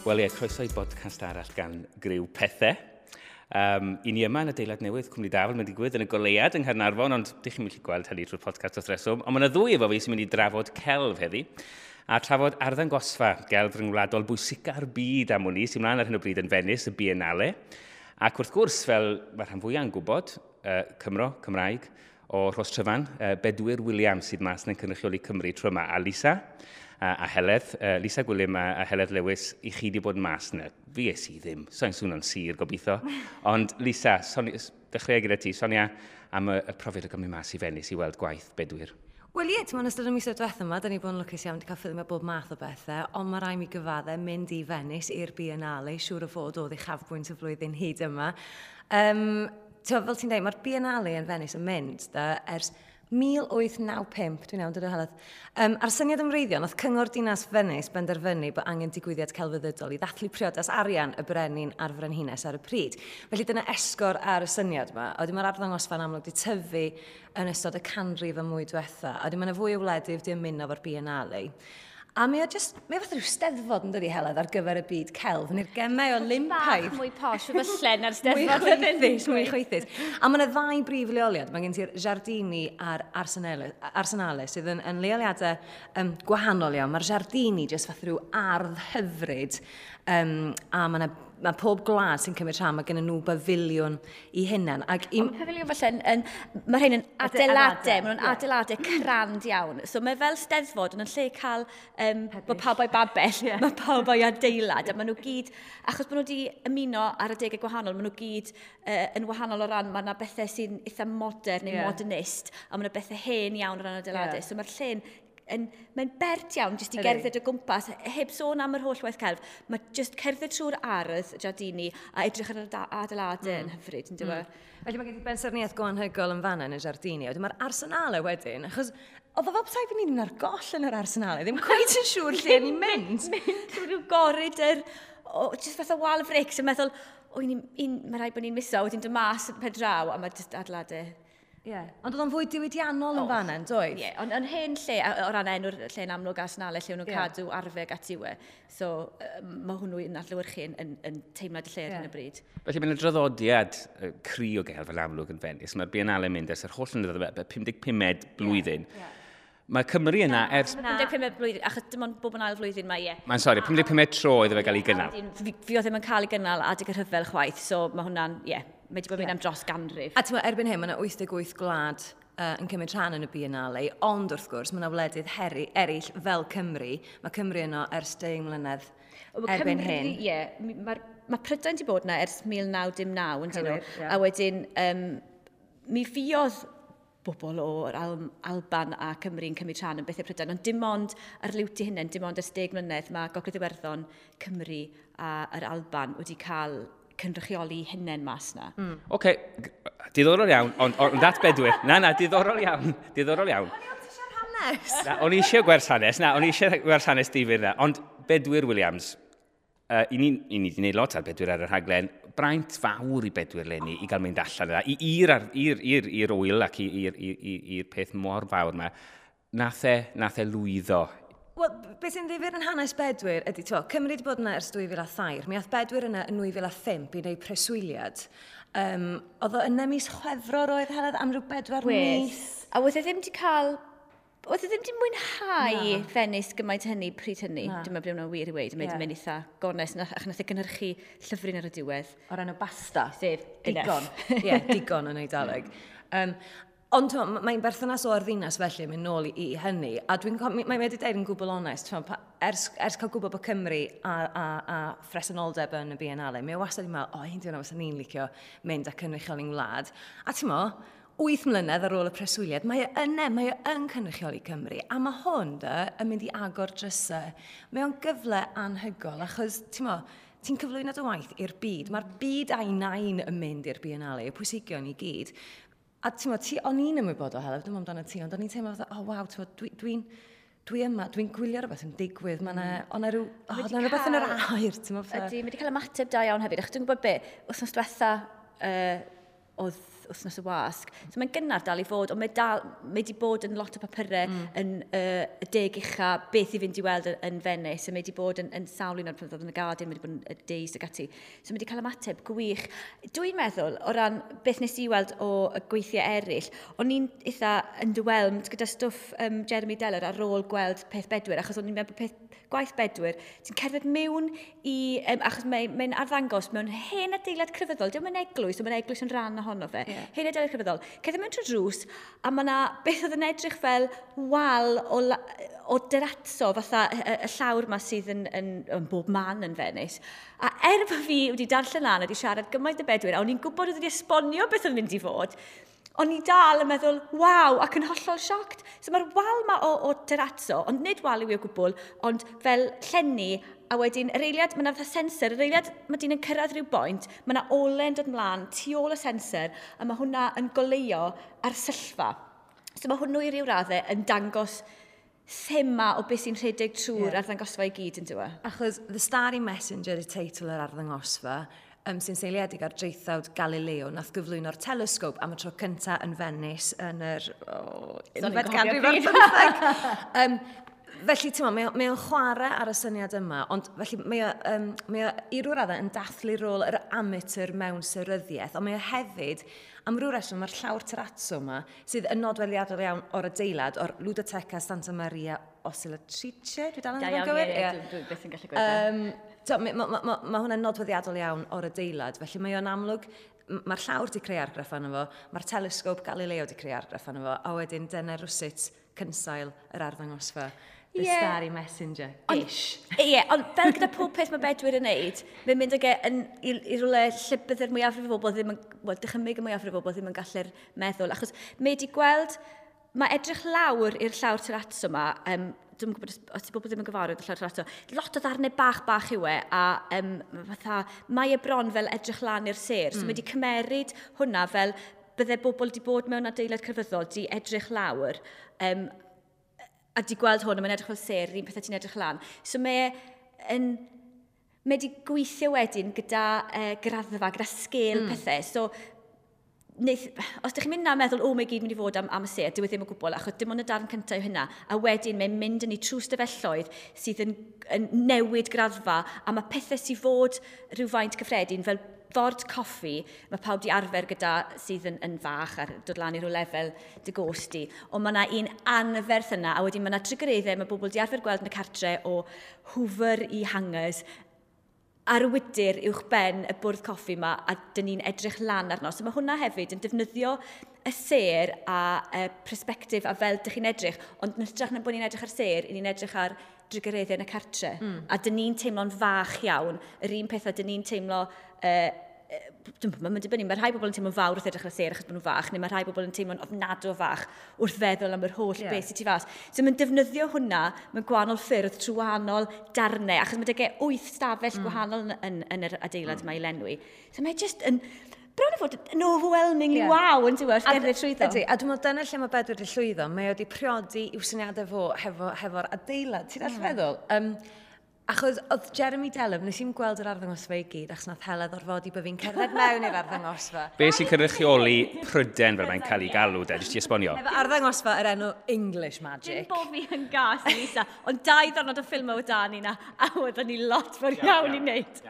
Wel ie, croeso i bodcast arall gan Griw Pethe. I ni yma yn adeilad newydd Cwmni Dafel, mae'n digwydd yn y goleuad yng Nghaernarfon, ond dych chi'n gallu gweld hynny trwy'r podcast wrth reswm. Ond mae yna ddwy efo fi sy'n mynd i drafod celf heddi, a trafod arddangosfa gelf ryngwladol bwysica'r byd am wn i, sy'n mlaen ar hyn o bryd yn Venice, y Biennale. Ac wrth gwrs, fel mae rhan fwyaf yn gwybod, Cymro, Cymraeg, o Rhos Tryfan, Bedwyr Williams sydd mas yn cynrychioli Cymru trwy yma, a Lisa a Heledd, Lisa Gwilym a Heledd Lewis, i chi wedi bod mas yna. Fi es i ddim, so'n swnio'n sir gobeithio. Ond Lisa, dechrau gyda ti, sonia am y profiad o gymryd mas i Venice i weld gwaith Bedwyr. Wel ie, ti'n ystod y misoedd diwethaf yma, da ni bod yn lwcus iawn wedi cael ffilmio bob math o bethau, ond mae rhaid mi gyfadde mynd i Venice i'r Biennale, siŵr o fod oedd uchafbwynt y flwyddyn hyd yma. Fel ti'n dweud, mae'r Biennale yn Venice yn mynd da, ers 1895, dwi'n iawn, dod o Heledd. A'r syniad ymwreiddiol, nath Cyngor Dinas Venice benderfynu bod angen digwyddiad celfyddydol i ddathlu priodas arian y brenin a'r frenhines ar y pryd. Felly dyna esgor ar y syniad yma. A wedyn mae'r arddangosfa'n amlwg wedi tyfu yn ystod y canrif y mwy diwetha. A wedyn mae yna fwy o wledydd wedi ymuno efo'r Biennale. A mae o just, mae o fath rhyw steddfod yn dydi Heledd ar gyfer y byd celf, neu'r gemau Olympaidd. Bach mwy posh, falle na'r steddfod. Mwy chwaethus, mwy chwaethus. A mae yna ddau brif leoliad. Mae gen ti'r Giardini a'r Arsenale, sydd yn leoliadau gwahanol iawn. Mae'r Giardini just fath rhyw ardd hyfryd, a mae yna mae pob gwlad sy'n cymryd rhan, mae gen nhw bafiliwn i hunain. Ond pafiliwn falle, mae rhain yn adeiladau, maen nhw'n adeiladau crand iawn. So mae fel steddfod, ond yn lle cael bod pawb o'i babell, mae pawb o'i adeilad. A maen nhw gyd, achos bod nhw wedi ymuno ar adegau gwahanol, maen nhw gyd yn wahanol o ran, mae yna bethau sy'n eitha modern neu modernist, a mae yna bethau hen iawn o ran adeiladau. So mae'r lle'n mae'n bert iawn jyst i gerdded o gwmpas, heb sôn am yr holl waith celf. Mae jyst cerdded trwy'r ardd Giardini a edrych ar yr adeiladau yn hyfryd, yn dyw e? Felly mae gen ti bensaernïaeth go anhygoel yn fan'na yn y Giardini. Wedyn mae'r Arsenale wedyn, achos oedd o fel petai fi'n mynd ar goll yn yr Arsenale, ddim cweit yn siŵr lle o'n i'n mynd. Mynd trwy ryw goridor, jyst fath o wal frics, yn meddwl, mae rhaid bod ni'n miso, wedyn dod mas yn pen draw, a mae jyst adeiladau. Ie, ond oedd o'n fwy diwydiannol yn fan'na, yn doedd? Ie, ond yn hen lle, o ran enw'r lle'n amlwg Arsenale, lle o'n nhw'n cadw arfau ac ati we. So, mae hwnnw yn adlewyrchu yn teimlad y lle ar hyn o bryd. Felly mae'n draddodiad cry o gelf yn amlwg yn Venice. Mae'r Biennale yn mynd ers yr holl flynyddoedd, 55 blwyddyn. Mae Cymru yna ers... 55 blwyddyn, achos dim ond bob yn ail flwyddyn mae, ie. Mae'n sori, 55 tro iddo fe gael ei gynnal. Fi oedd ddim yn cael ei gynnal adeg y rhyfel chwaith, so mae hwnna'n, ie. Mae wedi bod yn mynd am dros ganrif. A ti'n meddwl, erbyn hyn, mae yna 88 gwlad yn cymryd rhan yn y Biennale, ond wrth gwrs, mae yna wledydd eraill fel Cymru. Mae Cymru yno ers 10 mlynedd erbyn hyn. Ie, mae Prydain wedi bod yna ers 1909, yn dyn nhw. A wedyn, mi fuodd bobl o'r Alban a Cymru yn cymryd rhan yn bethau Prydain, ond dim ond ar liwt i hunain, dim ond ers 10 mlynedd, mae Gogledd Iwerddon, Cymru a yr Alban wedi cael cynrychioli hunain mas na. Oce, diddorol iawn, ond at Bedwyr. Na, diddorol iawn, diddorol iawn. O'n i ond eisiau'r hanes. Na, o'n i eisiau gwers hanes, na, o'n i eisiau gwers hanes difyr na. Ond Bedwyr Williams, i ni wedi gwneud lot ar Bedwyr ar y rhaglen, braint fawr i Bedwyr leni i gael mynd allan yna, i'r wyl ac i'r peth mor fawr yma. Nath e lwyddo. Wel, beth sy'n ddifyr yn hanes Bedwyr ydy, ti'n gwbod, Cymru wedi bod yna ers 2003, mi ath Bedwyr yna yn 2005 i wneud preswyliad. Oedd o yna mis Chwefror oedd Heledd am ryw 4 mis. A oedd e ddim wedi cael, oedd e ddim wedi mwynhau Venice gymaint hynny pryd hynny. Dwi'n meddwl bod hwnna'n wir i weud, mae'n mynd eitha gonest, ac nath e gynhyrchu llyfryn ar y diwedd. O'r enw Basta. Sef Digon. Ie, digon yn Eidaleg. Ond mae'n berthynas o'r ddinas felly yn mynd nôl i hynny, a dwi'n mae wedi deud yn gwbl onest, ers cael gwybod bod Cymru a phresenoldeb yn y Biennale, mae o wastad yn meddwl, o, un diwrnod fysa ni'n licio mynd a cynrychioli'n wlad. A ti'n mo, 8 mlynedd ar ôl y preswyliad, mae e yna, mae e yn cynrychioli Cymru, a mae hwn dy yn mynd i agor drysau. Mae o'n gyfle anhygoel, achos, ti'n mo, ti'n cyflwyno dy waith i'r byd. Mae'r byd a'i nain yn mynd i'r Biennale, y pwysigion i gyd. A ti'n meddwl, o'n i'n ymwybodol, Heledd, dwi'n meddwl amdano ti, ond o'n i'n teimlo fatha, oh waw, ti'n meddwl, dwi yma, dwi'n gwylio rhywbeth yn digwydd, mae yna rhywbeth yn yr aer, ti'n meddwl. Ydy, mae wedi cael ymateb da iawn hefyd, achos dwi'n gwybod be, wythnos diwetha, oedd Wythnos y Wasg. So mae'n gynnar dal i fod, ond mae wedi bod yn lot o papurau yn y 10 ucha beth i fynd i weld yn Venice, a mae wedi bod yn sawl un o'r pethau yn y Guardian, mae wedi bod yn y Days ac ati. So mae wedi cael ymateb gwych. Dwi'n meddwl, o ran beth nes i weld o y gweithiau eraill, o'n i'n eitha underwhelmed gyda stwff Jeremy Deller ar ôl gweld peth Bedwyr, achos o'n i'n meddwl peth gwaith Bedwyr, ti'n cerdded mewn i, achos mae'n arddangos mewn hen adeilad crefyddol, diolch yn eglwys, ond mae'n eglwys yn rhan ohono fe, hen adeilad crefyddol. Cerdded mewn trwy drws, a mae yna beth oedd yn edrych fel wal o derazzo, fatha y llawr yma sydd yn bob man yn Venice. A er bod fi wedi darllen lan a wedi siarad gymaint y Bedwyr, a o'n i'n gwybod oedd wedi esbonio beth oedd yn mynd i fod, o'n i dal yn meddwl, waw, ac yn hollol shocked. So mae'r wal ma o terrazzo, ond nid wal yw i o gwbl, ond fel llenni, a wedyn yr eiliad, mae yna fatha sensor, yr eiliad mae dyn yn cyrraedd rhyw boint, mae yna ole'n dod mlaen tu ôl y sensor, a mae hwnna yn goleuo ar syllfa. So mae hwnnw i ryw raddau yn dangos thema o beth sy'n rhedeg trwy'r arddangosfa i gyd yn dweud. Achos The Starry Messenger y teitl yr arddangosfa, sy'n seiliedig ar draethawd Galileo, nath gyflwyno'r telescope am y tro cyntaf yn Venice yn yr unfed ganrif ar bymtheg. Felly, ti'n meddwl, mae o'n chwarae ar y syniad yma, ond felly mae o i ryw raddau yn dathlu rôl yr amateur mewn seryddiaeth, ond mae o hefyd, am ryw reswm, mae'r llawr terrazzo yma, sydd yn nodweddiadol iawn o'r adeilad, o'r Ludoteca Santa Maria Ausiliatrice, dwi dal yn iawn gywir? Ie, dwi byth yn gallu gweud. Mae hwnna'n nodweddiadol iawn o'r adeilad, felly mae o'n amlwg, mae'r llawr di creu argraff arno fo, mae'r telescope Galileo di creu argraff arno fo, a wedyn dyna rywsut cynsail yr arddangosfa. The Starry Messenger. Ish. Ie, ond fel gyda pob peth mae Bedwyr yn neud, mae'n mynd ag e i rywle lle bydde'r mwyafrif o bobl ddim yn, wel, dychymyg y mwyafrif o bobl ddim yn gallu'r meddwl. Achos mae wedi gweld, mae edrych lawr i'r llawr terrazzo yma, dwi'n gwybod os ti bobl ddim yn gyfarwydd â'r llawr terrazzo, lot o ddarnau bach bach yw e, a fatha, mae e bron fel edrych lan i'r sêr. So mae wedi cymeryd hwnna fel bydde bobl wedi bod mewn adeilad crefyddol, di edrych lawr, a di gweld hwn, a mae'n edrych fel sêr, yr un pethau ti'n edrych lan. So mae wedi gweithio wedyn gyda graddfa, gyda sgêl pethau. So, os ydych chi'n mynd na meddwl, o, mae gyd mynd i fod am y sêr, dyw e ddim o gwbl, achos dim ond y darn cyntaf yw hynna. A wedyn mae'n mynd yn ei trwy stafelloedd sydd yn newid graddfa, a mae pethau sydd fod rhywfaint cyffredin, fel ford coffi, mae pawb di arfer gyda sydd yn fach a dod lan i rhyw lefel dy gost di. Ond mae yna un anferth yna, a wedyn mae yna trygareddau, mae bobl di arfer gweld yn y cartre o hoover i hangers, ar y wydyr uwch ben y bwrdd coffi yma, a dyn ni'n edrych lan arno. So mae hwnna hefyd yn defnyddio y sêr a perspectif a fel dych chi'n edrych, ond yn hytrach na bod ni'n edrych ar sêr, ni'n edrych ar drugareddau yn y cartre. A dyn ni'n teimlo'n fach iawn, yr un peth a dyn ni'n teimlo, mae'n dibynnu, mae rhai bobl yn teimlo'n fawr wrth edrych ar y sêr achos bod nhw'n fach, neu mae rhai bobl yn teimlo'n ofnadw fach wrth feddwl am yr holl beth sydd tu fas. So mae'n defnyddio hwnna mewn gwahanol ffyrdd trwy wahanol darnau, achos mae 'da 8 stafell gwahanol yn yr adeilad yma i lenwi. So mae just yn, bron i fod yn overwhelmingly wow yn diwedd wrth gerdded trwyddo. Ydy, a dwi'n meddwl dyna lle mae Bedwyr wedi llwyddo, mae wedi priodi i'w syniadau fo hefo'r adeilad, ti'n gallu feddwl? Achos oedd Jeremy Deller, nes i'n gweld yr arddangosfa i gyd, achos nath Heledd orfodi bod fi'n cerdded mewn i'r arddangosfa. Be sy'n cynrychioli Pryden fel mae'n cael ei galw, de, jyst i esbonio? Efo arddangosfa yr enw English Magic. Dim bo fi yn gas, Lisa, ond 2 ddiwrnod o ffilmau o dan ni na, a oedden ni lot fawr iawn i wneud.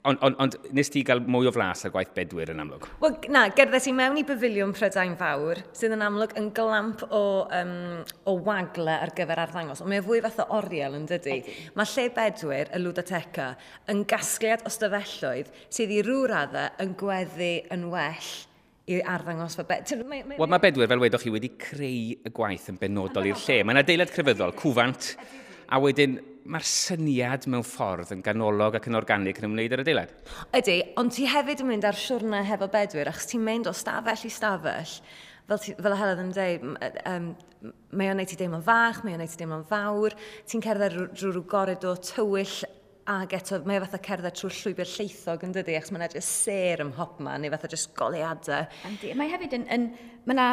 Ond nes ti gael mwy o flas ar gwaith Bedwyr yn amlwg? Wel, na, gerddes i mewn i Bafiliwn Prydain Fawr, sydd yn amlwg yn glamp o wagle ar gyfer arddangos, ond mae o fwy fath o oriel yn dydi. Mae lle Bedwyr, y Ludoteca, yn gasgliad o stafelloedd sydd i ryw raddau yn gweddu yn well i arddangosfa. Wel, mae Bedwyr, fel wedoch chi, wedi creu y gwaith yn benodol i'r lle. Mae'n adeilad crefyddol, cwfant, a wedyn mae'r syniad mewn ffordd yn ganolog ac yn organig yn ymwneud â'r adeilad. Ydy, ond ti hefyd yn mynd ar siwrne hefo Bedwyr, achos ti'n mynd o stafell i stafell, fel Heledd yn dweud, mae o'n neud ti deimlo'n fach, mae o'n neud ti deimlo'n fawr, ti'n cerdded drwy rhyw goridor tywyll, ac eto mae o fatha cerdded trwy'r llwybr lleithog yn dydi, achos mae'n edrych sêr ym mhobman, neu fatha jyst goleuadau. Yndi, mae hefyd mae 'na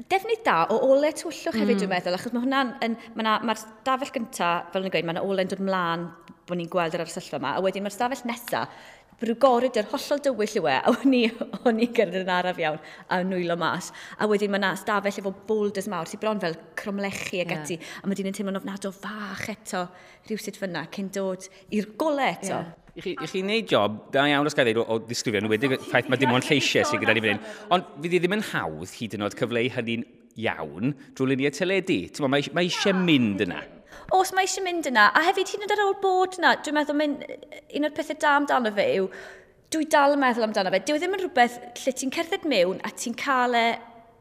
defnydd da o ole tywyllwch hefyd, dwi'n meddwl, achos mae hwnna'n, mae'r stafell gynta, fel o'n i'n gweud, mae yna ole'n dod mlaen bod ni'n gweld yr arsyllfa yma. A wedyn mae'r stafell nesaf, rhyw goridor hollol dywyll yw e, a o'n i'n gerdded yn araf iawn a nwylo mas. A wedyn mae yna stafell efo boulders mawr sy'n bron fel cromlechi ag ati, a mae dyn yn teimlo'n ofnadw fach eto rhywsut fyna cyn dod i'r gole eto. Yeah. I chi wneud job da iawn os gael dweud o ddisgrifio, yn wedi ffaith mae dim ond lleisiau sydd gyda ni fan hyn. Ond fydd hi ddim yn hawdd hyd yn oed cyfleu hynny'n iawn drwy luniau teledu. Ti'n mae, mae eisiau mynd yna. Os mae eisiau mynd yna, a hefyd hyd yn oed ar ôl bod yna, dwi'n meddwl mynd, un o'r pethau da amdano fe yw, dwi dal yn meddwl amdano fe. Dyw e ddim yn rhywbeth lle ti'n cerdded mewn a ti'n cael e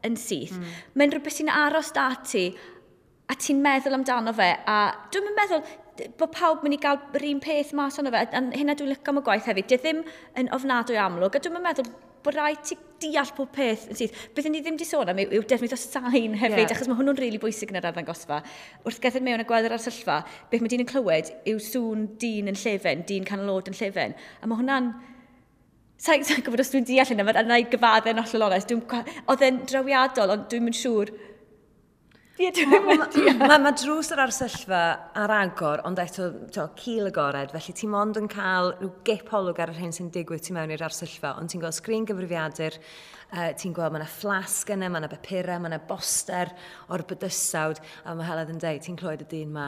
yn syth. Mae'n rhywbeth sy'n aros da ti a ti'n meddwl amdano fe. A dwi'n meddwl bod pawb mynd i gael yr un peth mas ono fe. A hynna dwi'n licio am y gwaith hefyd. Dyw e ddim yn ofnadwy amlwg. A dwi'n meddwl bod rhaid ti deall pob peth yn syth. Beth ni ddim wedi sôn am yw defnydd o sain hefyd, achos mae hwnnw'n rili really bwysig yn yr arddangosfa. Wrth gerdded mewn a gweld yr arsyllfa, beth mae dyn yn clywed yw sŵn dyn yn llefen, dyn canol oed yn llefen. A mae hwnna'n... Sa'n sa gwybod os dwi'n deall hynna, mae'n rhaid gyfadde'n hollol onest. Oedd e'n drawiadol, ond dwi'n mynd siŵr. Ie, dwi'n mynd Mae ma drws yr arsyllfa ar agor, ond eto to, cil agored, felly ti mond yn cael rhyw gip olwg ar yr hyn sy'n digwydd tu mewn i'r arsyllfa, ond ti'n gweld sgrin gyfrifiadur, ti'n gweld mae yna fflasg yna, mae yna bapurau, mae yna boster o'r bydysawd, a mae Heledd yn dweud, ti'n clywed y dyn ma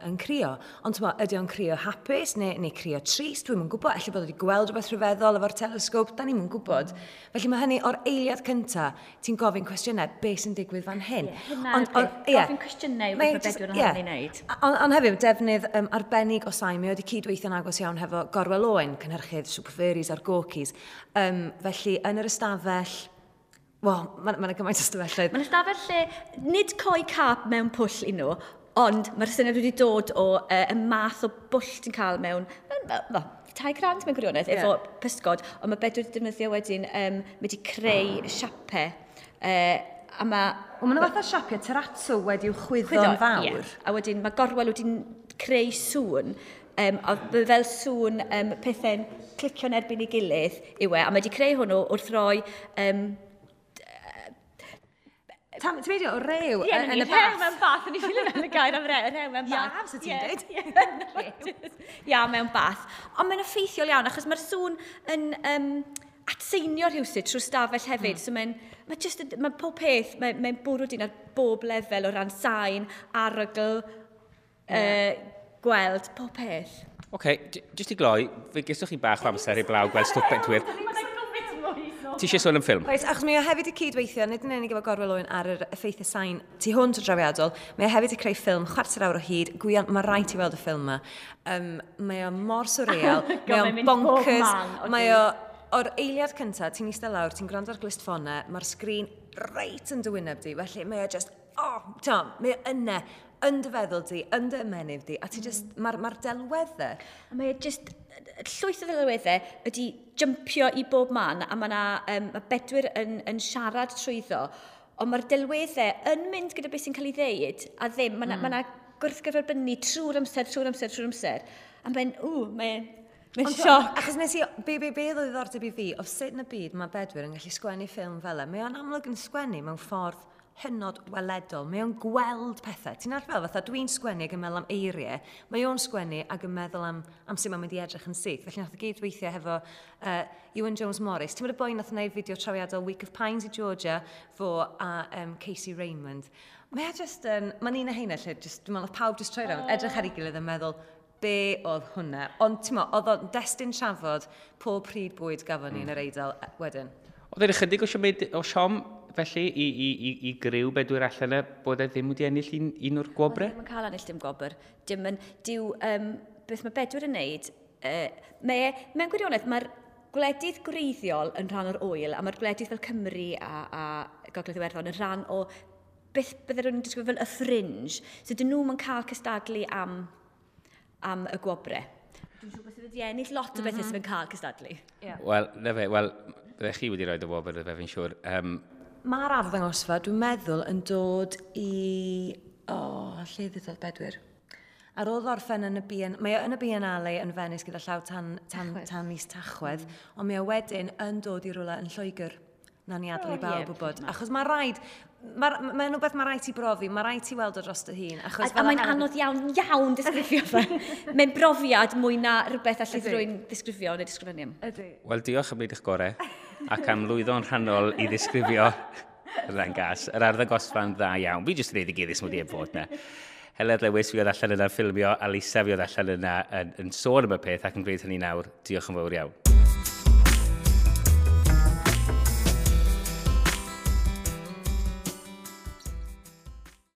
yn crio. Ond ti'n ydy o'n crio hapus neu crio trist? Dwi'm yn gwybod, ella bod wedi gweld rhywbeth rhyfeddol efo'r telesgop, da ni'm yn gwybod. Felly mae hynny o'r eiliad cynta, ti'n gofyn cwestiynau, beth sy'n digwydd fan hyn? Ie, gofyn cwestiynau yw beth mae Bedwyr yn hynny'n wneud. Ond hefyd, defnydd arbennig o sain, mae wedi cydweithio'n agos iawn hefo Gorwel Owen, cynhyrchydd Super Furries a'r Gorkys. Felly, yn yr ystafell, wel, mae yna gymaint o ystafelloedd. Mae'n ystafell lle, nid coi cap mewn pwll i nhw, ond mae'r syniad wedi dod o y math o bwll ti'n cael mewn, tai crand mewn gwirionedd, efo pysgod, ond mae Bedwyr wedi defnyddio wedyn, mae wedi creu siapau, a mae... Wel, maen nhw fatha siapiau terrazzo wedi'w chwyddo'n fawr. Yeah. A wedyn mae Gorwel wedi creu sŵn, a fel sŵn pethau'n clicio'n erbyn ei gilydd yw e, a mae wedi creu hwnnw wrth roi... Ti'n medio o rew yn y bath? Rew mewn bath, o'n i ffilio mewn y gair am rew mewn bath. Ia, so ti'n dweud. Ia, mewn bath. Ond mae'n effeithiol iawn, achos mae'r sŵn yn atseinio rhywsut trwy stafell hefyd. So mae'n mae pob peth, mae'n bwrw dyn ar bob lefel o ran sain, arogl, gweld, pob peth. Oce, jyst i gloi, fe geswch chi bach o amser i blaw gweld stwff Bedwyr. Ti eisiau sôn am ffilm? Oes, achos mae o hefyd i cydweithio, nid yn unig efo Gorwel Owen ar yr effeithiau sain tu hwnt o drawiadol, mae o hefyd i creu ffilm chwarter awr o hyd. Gwion, mae rhaid ti weld y ffilm yma. Mae o mor surreal, mae o'n bonkers, mae o... O'r eiliad cyntaf, ti'n eistedd lawr, ti'n gwrando ar glustffonau, mae'r sgrin reit yn dy wyneb di, felly mae o just, oh, Tom, mae o yna, yn dy feddwl di, yn dy ymennydd di, a ti just, mae'r delweddau. A mae o just, llwyth o ddelweddau ydi jumpio i bob man, a mae ma Bedwyr yn siarad trwyddo, ond mae'r delweddau yn mynd gyda beth sy'n cael ei ddeud, a ddim, mae yna gwrthgyferbynnu trwy'r amser, trwy'r amser, trwy'r amser, a mae'n, mae'n... Mae'n sioc. Achos nes i, be oedd o ddiddordeb i fi, o sut yn y byd mae Bedwyr yn gallu sgwennu ffilm fel e. Mae o'n amlwg yn sgwennu mewn ffordd hynod weledol. Mae o'n gweld pethau. Ti'n arfer fel, fatha dwi'n sgwennu ac yn meddwl am eiriau. Mae o'n sgwennu ac yn meddwl am sut mae'n mynd i edrych yn syth. Felly nath o gyd weithio hefo Iwan Jones Morris. Ti'n meddwl y boi nath wneud fideo trawiadol Week of Pines i Georgia, fo a Casey Raymond. Mae o just yn, mae'n un o heina lle, just, dwi'n meddwl, pawb just troi rownd, edrych ar ei gilydd yn meddwl, be oedd hwnna. Ond ti'n meddwl, oedd o'n destun trafod pob pryd bwyd gafon ni yn yr Eidal wedyn. Oedd e'n ychydig o siom felly i griw Bedwyr allan e bod e ddim wedi ennill un o'r gwobrau? Ddim yn cael ennill dim gwobr. Dim yn, diw, beth mae Bedwyr yn neud, mewn gwirionedd, mae'r gwledydd gwreiddiol yn rhan o'r ŵyl, a mae'r gwledydd fel Cymru a Gogledd Iwerddon yn rhan o beth bydde rhywun yn disgrifio fel y fringe. So dyn nhw'n cael cystadlu am y gwobrau. Dwi'n siŵr bod sydd wedi ennill lot o bethau sydd yn cael cystadlu. Yeah. Wel, na fe, wel, byddech chi wedi rhoi y wobr, fe fi'n siŵr. Mae'r arddangosfa, dwi'n meddwl, yn dod i... O, lle ddudodd Bedwyr? Ar ôl orffen yn y mae o yn y Biennale yn Venice gyda llaw tan mis Tachwedd, ond mae o wedyn yn dod i rywle yn Lloegr. Nawn ni adael i bawb wybod. Achos mae rhaid, mae'n ma rhywbeth mae rhaid ti brofi, mae rhaid ti weld o dros dy hun. Achos a mae'n anodd iawn, iawn disgrifio fe. Mae'n brofiad mwy na rhywbeth allith rwy'n ddisgrifio neu disgrifennu am. Ydy. Wel, diolch am wneud eich gorau ac am lwyddo'n rhannol i ddisgrifio yr ddangos. Yr arddangosfa'n dda iawn. Fi jyst yn ei ddigyddus mod i heb fod na. Heledd Lewis fi oedd allan yna'n ffilmio, a Lisa fi oedd allan yna yn sôn am y peth ac yn gwneud hynny nawr. Diolch yn fawr iawn.